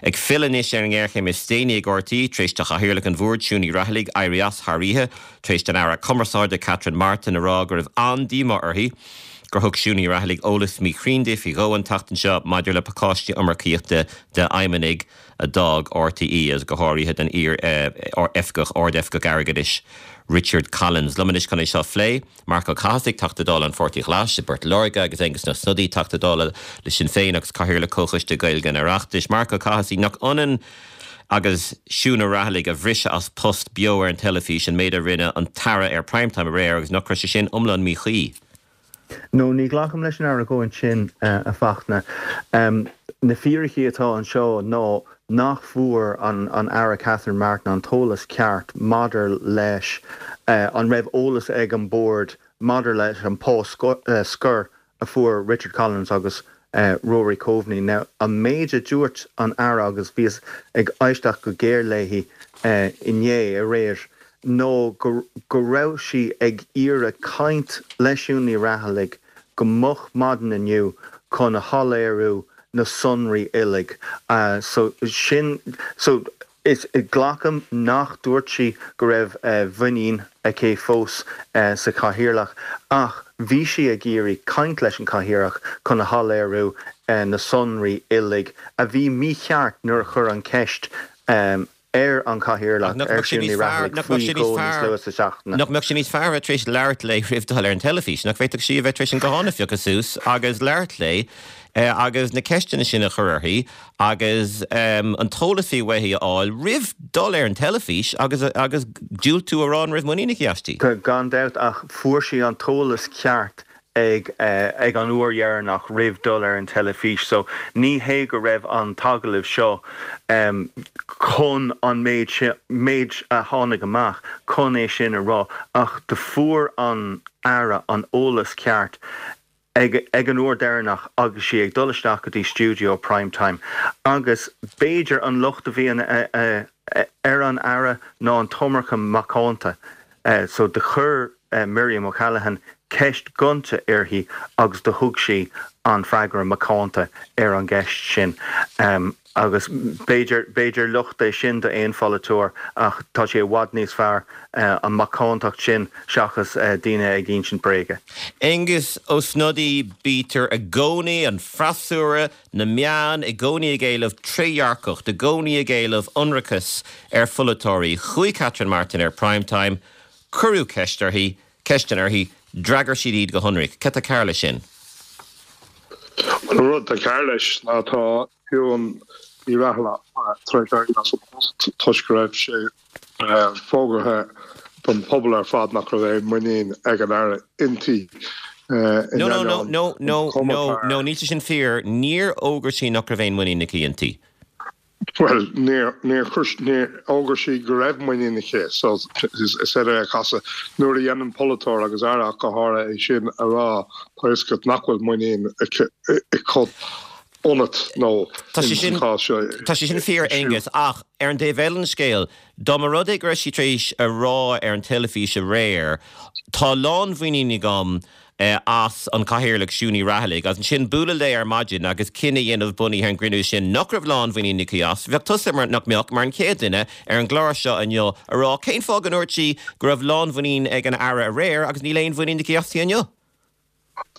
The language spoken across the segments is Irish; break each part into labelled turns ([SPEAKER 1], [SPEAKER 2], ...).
[SPEAKER 1] Ag filleadh anois ar an ngéarchéim is déanaí ag RTÉ, tar éis do Chathaoirleach an Bhoird, Siún Ní Raghallaigh, éirí as thar oíche, tar éis don Aire Cumarsáide, Catherine Martin, a rá go raibh an-díomá uirthi gur thug Siún Ní Raghallaigh eolas míchruinn di faoi dhó an tseachtain seo maidir le pacáistí iomarcaíochta d'fheidhmeannaigh a d'fhág RTÉ, agus go háirithe don iar-oifigeach, Ard-Oifigeach Airgeadais, Richard Collins. Liom anois chun é seo a phlé. Marc Ó Cathasaigh, Teachta Dála an Pháirtí Ghlais i bPort Láirge agus Aengus Ó Snodaigh, Teachta Dála le Sinn Féin agus Cathaoirleach Comhchoiste Gaeilge an Oireachtais. Marc Ó Cathasaigh, Nach ionann agus Siún Ní Raghallaigh a bhriseadh as post beo ar an teilifís an méid a rinne an tAire ar Prime Time aréir agus nach raibh sé sin iomlán míchuí?
[SPEAKER 2] No, ní ghlacaim leis an argóint sin, a Fachtna. Na fíricí atá anseo ná nach bhfuair an Aire Catherine Martin an t-eolas ceart maidir leis an raibh eolas ag an Bord maidir leis an pá scoir a fuair Richard Collins agus Rory Coveney. Now, an méid a dúirt an Aire, agus bhíos ag éisteacht go géar léi inné, aréir, ná go raibh sí ag iarraidh caint le Siún Ní Raghallaigh go moch maidin inniu chun a shoiléiriú na sonraí uilig. So sin, so is, glacaim nach dúirt sí go raibh muinín aici fós sa chathaoirleach ach bhí sí ag iarraidh caint leis an chathaoirleach chun a shoiléiriú na sonraí uilig a bhí mícheart nuair a chuir an ceist ar an
[SPEAKER 1] Chathaoirleach,
[SPEAKER 2] ar Siún Ní Raghallaigh faoi dhó níos luaithe sa
[SPEAKER 1] seachtain. Nach mbeadh sé níos fearr a bheith tar éis labhairt léi roimh dul ar an teilifís? Nach bhféadfadh sí a bheith tar éis an guthán a phiocadh suas agus labhairt léi agus na ceisteanna sin a chur uirthi agus an t-eolas a bhí uaithi a fháil roimh dul ar an teilifís agus agus diúltú a rá an raibh muinín aici aisti?
[SPEAKER 2] Gan dabht, ach fuair sí an t-eolas ceart ag ag an uair dheireanach roimh dul ar an teilifís so ní hé go raibh an t-agallamh seo chun an méid sin, méid a tháinig amach chun é sin a rá ach do fuair an Aire an eolas ceart ag ag an uair deireanach agus sí ag dul isteach go dtí stiúideo Prime Time agus b'fhéidir an locht a bhí ar an Aire ná an t-iomarca macánta so do chuir Miriam O'Callaghan ceist gonta uirthi agus do thug sí an freagra macánta ar an gceist sin. Agus b'fhéidir, b'fhéidir locht é sin d'aon pholaiteoir ach tá sé i bhfad níos fearr an macántacht sin seachas daoine ag insint bréige.
[SPEAKER 1] Aengus Ó Snodaigh, Bítear i gcónaí, an freasúra, na meáin, i gcónaí ag éileamh trédhearcacht, i gcónaí ag éileamh ionracas ar pholaiteoirí. Chuaigh Catherine Martin ar Prime Time, Cuireadh ceist uirthi, ceisteanna uirthi, d'fhreagair siad iad go hionraic. Cad tá cearr leis sin?
[SPEAKER 3] Bhuel, an rud atá cearr leis ná tá Siún Ní Raghallaigh tar éis éirí as an bpost toisc go raibh sé fógartha don phobal ar fad nach raibh aon muinín ag an Aire inti.
[SPEAKER 1] In No, no, no, ainneoin no, no, an chuma no, fear. no, níl sé sin fíor. Níor fhógair sí nach raibh aon muinín aici inti.
[SPEAKER 3] Bhuel, níor, níor chuir, níor fhógair sí go raibh muinín aici, so is féidir é a chasadh. Nuair a dhéanann polaiteoir, agus Aire ach go háirithe, é sin a rá, tá a fhios agat nach bhfuil muinín aici ionat nó
[SPEAKER 1] Tá sé sin,
[SPEAKER 3] sa chás seo,
[SPEAKER 1] tá sé sin fíor, Aengus, ach ar an dtaobh eile den scéal, dá mba rud é go raibh sí tar éis a rá ar an teilifís aréir, tá lánmhuinín agam as an Cathaoirleach Siún Ní Raghallaigh agus ansin bualadh léi ar maidin agus cinneadh a dhéanamh bunaithe ar an gcruinniú sin nach raibh lánmhuinín aici as. Bheadh tusa, mar, nach mbeadh, mar an chéad duine ar an gclár seo inniu a rá cén fáth go ndúirt sí go raibh lánmhuinín ag an Aire aréir agus níl aon mhuinín aici aisti inniu?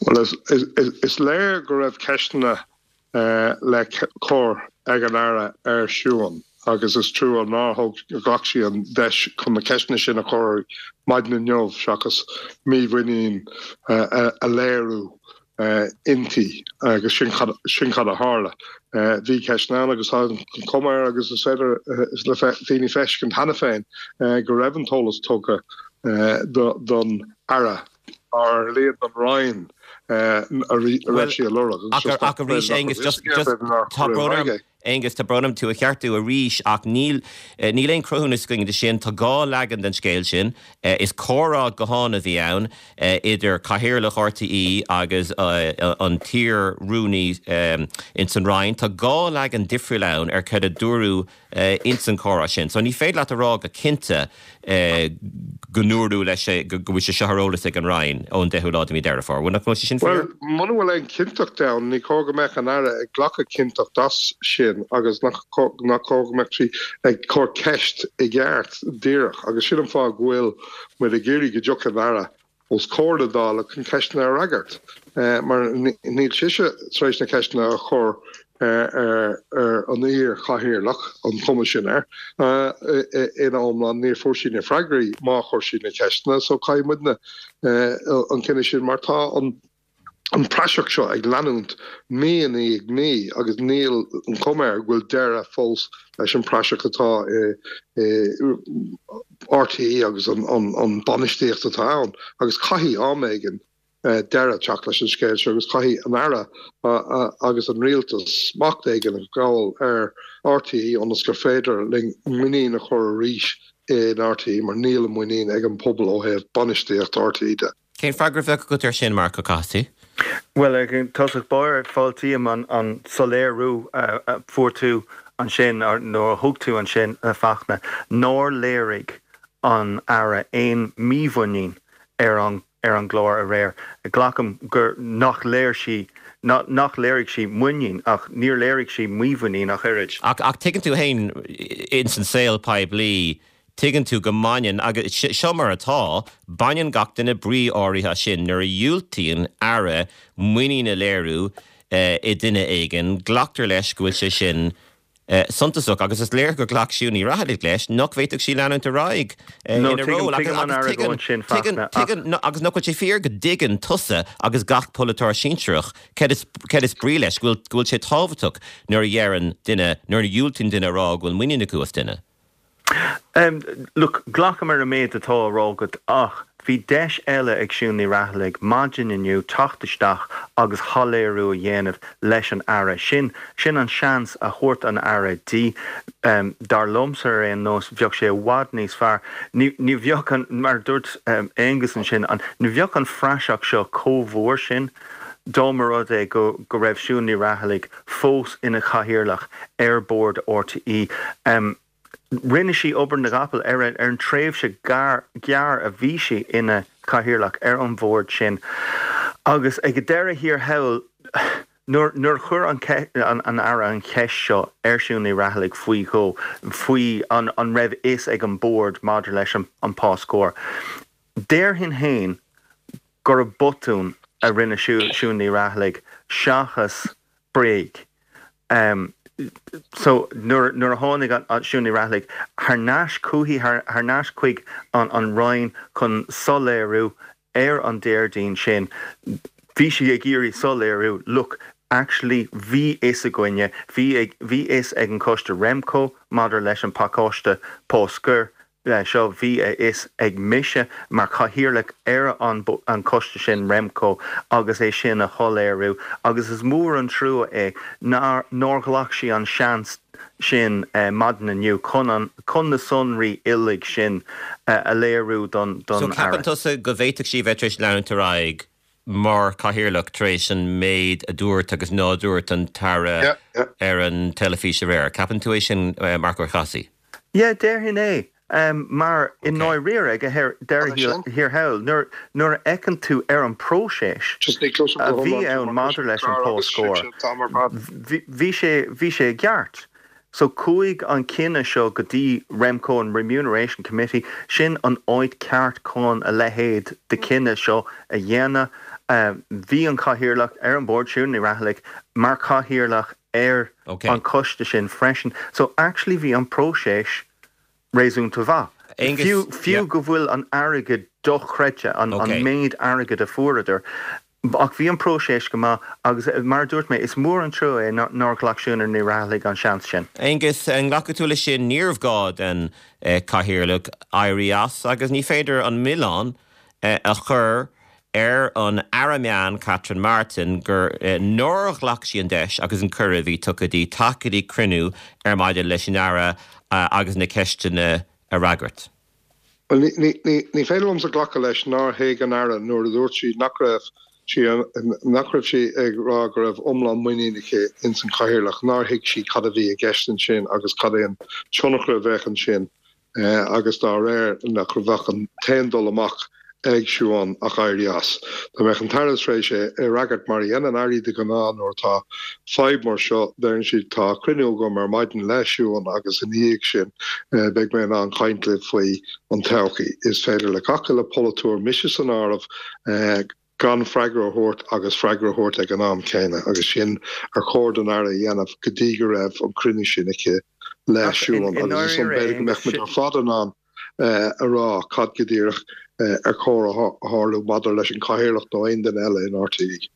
[SPEAKER 3] Bhuel, is léir go raibh ceisteanna le cur ag an Aire ar Siún agus is trua nár thóg, ghlac sí an deis chun na ceisteanna sin a chur maidin inniu seachas mímhuinín a léiriú inti agus sin cad, sin cad a tharla. Bhí ceisteanna ann agus tá an chuma air agus is féidir le daoine feiscint cheana féin go raibh an t-eolas tugtha don Aire. ar a laghad don Roinn a raibh sí a lorg
[SPEAKER 1] agus just ach arís Aengus just just tá brón orm Aengus tá brón orm tú a cheartú arís ach níl níl aon cruthúnas againn de sin tá dhá leagan den scéal sin is comhrá gutháin a bhí ann idir cathaoirleach RTÉ agus an t-iar-rúnaí ins an Roinn tá dhá leagan difriúil ann ar cad a dúradh ins an chomhrá sin. So ní féidir leat a rá go cinnte go ndúradh leis go bhfuil sé seo ar eolas ag an Roinn ón 10ú lá de mhí Deireadh Fómhair. Bhuel, nach bhfuil sé sin
[SPEAKER 3] fíor? Bhuel, muna bhfuil aon chinnteacht ann, ní chóir go mbeadh an Aire ag glacadh cinnteacht as sin. sin agus nach cóir go mbeadh sí ag cur ceist i gceart díreach agus sin an fáth go bhfuil muid ag iarraidh go dtiocfaidh an Aire os comhair na Dála chun ceisteanna a fhreagairt mar níl sise tar éis na ceisteanna a chur ar an iar-chathaoirleach, an chuma sin air, ina iomlán. Níor fuair sí na freagraí má chuir sí na ceisteanna so caithfidh muidne an cinneadh sin mar tá an an praiseach seo ag leanúint mí i ndiaidh mí agus níl an chuma air go bhfuil deireadh fós leis an bpraiseach atá i RTÉ agus an bainistíocht atá ann agus caithfidh am éigin deireadh teacht leis an scéal seo agus caithfidh an Aire agus an Rialtas smacht éigin a ghabháil ar RTÉ ionas gur féidir linn muinín a chur arís in RTÉ mar níl an muinín ag an pobal ó thaobh bainistíocht RTÉ de.
[SPEAKER 1] Cén freagra a bheadh agat air sin, Marc Ó Cathasaigh?
[SPEAKER 2] Bhuel, ag tosach báire, fáiltím an soiléiriú a fuair tú ansin, nó a thug tú ansin, a Fachtna, nár léirigh an Aire aon mímhuinín ar an ar an gclár aréir. Glacaim gur nach léir sí, nach léirigh sí muinín, ach níor léirigh sí mímhuinín ach oiread.
[SPEAKER 1] Ach tuigeann tú fhéin, ins an saol poiblí, Tuigeann tú go mbaineann, agus seo mar atá, baineann gach duine brí áirithe as sin. Nuair a dhiúltaíonn Aire muinín a léiriú i nduine éigin, glactar leis go bhfuil sé sin suntasach. Agus is léir gur ghlac Siún Ní Raghallaigh leis nach bhféadfadh sí leanúint ar aghaidh
[SPEAKER 2] ina ról.
[SPEAKER 1] Agus nach bhfuil sé fíor go dtuigeann tusa agus gach polaiteoir sinsearach céard is brí leis, go bhfuil sé tábhachtach nuair a dheireann duine, nuair a dhiúltaíonn duine a rá go bhfuil muinín acu as duine.
[SPEAKER 2] Look, glacaim ar an méid atá á rá agat ach bhí deis eile ag Siún Ní Raghallaigh maidin inniu teacht isteach agus shoiléiriú a dhéanamh leis an Aire. Sin, sin an seans a thabhairt an Aire di. Dar liomsa ar aon nós, bheadh sé i bhfad níos fearr, ní, ní bheadh an, mar a dúirt Aengus ansin, an, ní bheadh an phraiseach seo chomh mhór sin dá mba rud é go, go raibh Siún Ní Raghallaigh fós ina Chathaoirleach ar Bhord RTÉ. Rinne sí obair na gcapall ar an tréimhse ghearr a bhí sí ina Chathaoirleach ar an bhord sin agus ag deireadh thiar thall, nuair a chuir an Aire an cheist seo ar Siún Ní Raghallaigh faoi dhó, faoi an raibh fhios ag an Bord maidir leis an pá scóir, déarfainn féin gurb botún a rinne Siún Ní Raghallaigh seachas bréag. So nuair nuair a tháinig Siún Ní Raghallaigh thar n-ais chuici, thar n-ais chuig an Roinn chun soiléiriú ar an Déardaoin sin, bhí sí ag iarraidh soiléiriú, look, actually bhí fhios againne, bhí bhí fhios ag an choiste Remco maidir leis an pacáiste pá scoir, seo, bhí a fhios ag mise mar chathaoirleach ar an an coiste sin, Remco, agus é sin a shoiléiriú agus is mór an trua é nár nár ghlac sí an seans sin maidin inniu chun an chun na sonraí uilig sin a léiriú don
[SPEAKER 1] don So ceapann tusa go bhféadfadh sí a bheith tar éis leanúint ar aghaidh mar chathaoirleach tar éis an méid a dúirt agus ná dúirt an tAire ar an teilifís aréir? Ceapann tú é sin, Marc Ó Cathasaigh?
[SPEAKER 2] Yeah, déarfainn é. Mar i ndáiríre, ag deireadh thiar thall, nuair a fheiceann tú ar an bpróiseas a bhí ann maidir leis an pá scóir, bhí sé, bhí sé i gceart. So chuaigh an cinneadh seo go dtí Remco, an Remuneration Committee, sin an áit ceart chun a leithéid de chinneadh seo a dhéanamh. Bhí an cathaoirleach ar an bord, Siún Ní Raghallaigh, mar chathaoirleach ar an choiste sin freisin. So actually bhí an próiseas réasúnta mhaith. Fiú, fiú go bhfuil an airgead dochreidte, an méid airgid a fuaireadar, ach bhí an próiseas go maith agus mar a dúirt mé, is mór an trua é nár ghlac Siún Ní Raghallaigh an seans sin.
[SPEAKER 1] Aengus, an nglacfaidh tú leis sin? Níorbh gá don Chathaoirleach éirí as agus ní féidir an milleán a chur ar an Aire Meán Catherine Martin gur nár ghlac sí an deis agus an cuireadh a bhí tugtha di teacht go dtí cruinniú ar maidin leis an Aire agus na ceisteanna a fhreagairt.
[SPEAKER 3] Bhuel, ní féidir liomsa glacadh leis nár thuig an Aire nuair a dúirt sí nach raibh sí nach raibh sí ag rá go raibh iomlán muinín aici ins an Chathaoirleach, nár thuig sí cad a bhí i gceist ansin agus cad é an tionchar a bheadh ansin. agus dá réir nach bheadh an t-aon dul amach. ag Siún ach éirí as. Dá mbeadh an tAire tar éis é a fhreagairt mar a dhéanann Airí de ghnáth nuair atá fadhb mar seo, deireann siad tá cruinniú agam ar maidin le Siún agus ina dhiaidh sin beidh mé in ann caint libh faoi an todhchaí. Is féidir le gach uile pholaiteoir, mise san áireamh, gan freagra a thabhairt agus freagra a thabhairt ag an am céanna agus sin ar chóir don Aire a dhéanamh go dtí go raibh an cruinniú sin aici le Siún agus ansan b'fhéidir go mbeadh muid ar fad in ann a rá cad go díreach ar chóir a tharlú maidir leis an Chathaoirleach nó aon duine eile in RTÉ.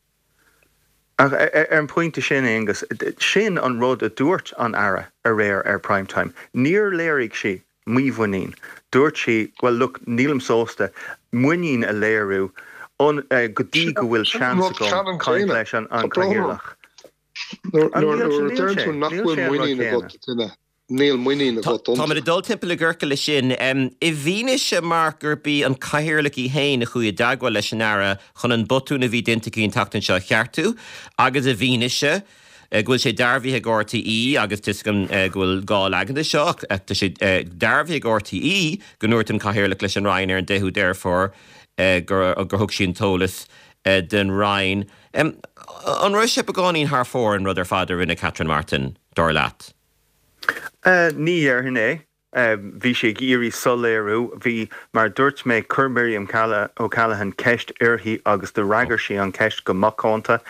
[SPEAKER 2] Ach ar an bpointe sin, Aonghus, sin an rud a dúirt an Aire aréir ar Prime Time. Níor léirigh sí mímhuinín. Dúirt sí, well look, nílim sásta muinín a léiriú go dtí go bhfuil seans agam caint leis an Chathaoirleach.
[SPEAKER 3] Nuair a deireann tú nach bhfuil muinín agat i nduine, níl muinín agat iontu.
[SPEAKER 1] Táimid ag dul timpeall i gciorcal leis sin. I bhfianaise, Mark, gurb í an Cathaoirleach í féin a chuaigh i dteagmháil leis an Aire chun an botún a bhí déanta aici an tseachtain seo a cheartú agus i bhfianaise go bhfuil sé dearbhaithe ag RTÉ, agus tá 'fhios agam go bhfuil gá leagan de seo, ach tá sé dearbhaithe ag RTÉ go ndúirt an Cathaoirleach leis an Roinn ar an 10ú Deireadh Fómhair gur thug sí an t-eolas don Roinn. An raibh sé beagáinín thar fóir an rud ar fad a rinne Catherine Martin, dar leat?
[SPEAKER 2] Ní dhéarfainn é. Bhí sí ag iarraidh soiléiriú. Bhí, mar a dúirt mé, chuir Miriam O'Callaghan ceist uirthi agus d'fhreagair sí an cheist go macánta.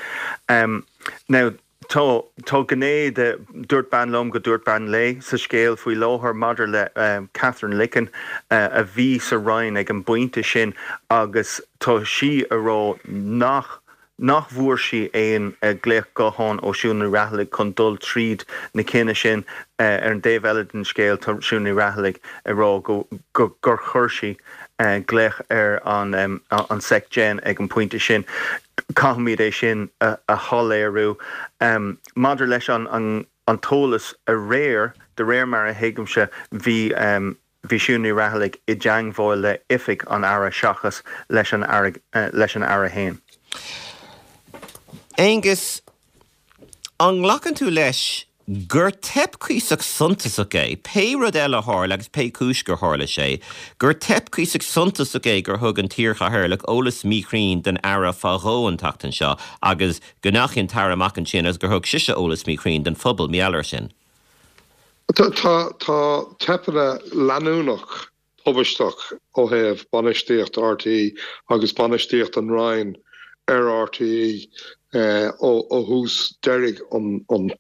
[SPEAKER 2] Now, tá, tá gné de dúirt bean liom go dúirt bean léi sa scéal faoi láthair maidir le Katherine Licken a bhí sa Roinn ag an bpointe sin agus tá sí a rá nach nach bhfuair sí aon ghlaoch gutháin ó Siún Ní Raghallaigh chun dul tríd na cinneadh sin. Ar an dtaobh eile den scéal, tá Siún Ní Raghallaigh ag rá go gur chuir sí glaoch ar an Sec Gen ag an bpointe sin. Caithfimid é sin a shoiléiriú. Maidir leis an t-eolas aréir, de réir mar a thuigimse, bhí. Bhí Siún Ní Raghallaigh i dteangmháil le oifig an Aire seachas leis an Aire leis an Aire fhéin.
[SPEAKER 1] Aengus, an nglacann tú leis gur teip cuíosach suntasach é, pé rud eile a tharla agus pé cúis gur tharla sé, gur teip cuíosach suntasach é gur thug an t-iarchathaoirleach eolas míchruinn don Aire fá dhó an tseachtain seo agus go ndeachaigh an tAire amach ansin agus gur thug sise eolas míchruinn don phobal, mar gheall air sin?
[SPEAKER 3] Tá teipeanna leanúnach tubaisteach ó thaobh bainistíocht RTÉ agus bainistíocht an Roinn ar RTÉ ó thús deiridh an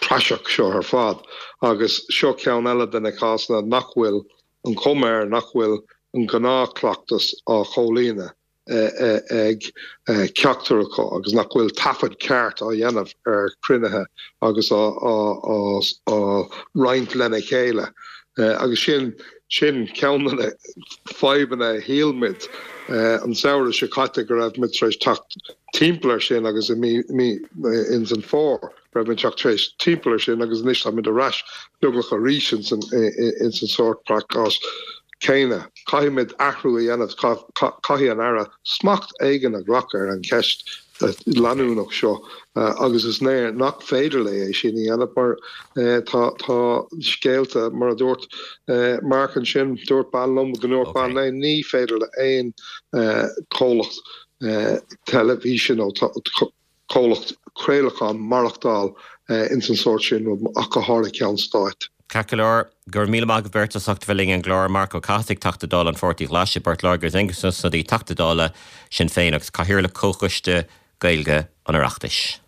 [SPEAKER 3] praiseach seo ar fad agus seo ceann eile de na cásanna nach bhfuil an chuma air nach bhfuil an gnáthchleachtas á chomhlíonadh. ag ceachtar acu agus nach bhfuil taifead ceart á dhéanamh ar chruinnithe agus á roinnt lena chéile. Agus sin sin ceann de na fadhbanna a shíl muid an samhradh seo caite go raibh muid tar éis teacht timpeall air sin agus i mí ins an fómhar. raibh muid teacht tar éis timpeall air sin agus anois táimid ar ais beagnach arís ins an ins an sórt cás céanna. Caithfimid athrú a dhéanamh, caithfidh an Aire smacht éigin a ghlacadh ar an cheist leanúnach seo agus is léir nach féidir léi é sin a dhéanamh mar tá tá scéalta mar a dúirt Mark ansin, dúirt bean liom go ndúirt bean léi, ní féidir le aon chomhlacht teilifíse nó comhlacht craolacháin maireachtáil ins an sórt sin rud, ach go háirithe ceann stáit.
[SPEAKER 1] Ceart go leor, go raibh míle maith agaibh beirt as ucht a bheith linn ar an gclár, Marc Ó Cathasaigh, Teachta Dála an Pháirtí Ghlais i bPort Láirge agus Aengus Ó Snodaigh, Teachta Dála Sinn Féin agus Cathaoirleach Comhchoiste Gaeilge an Oireachtais.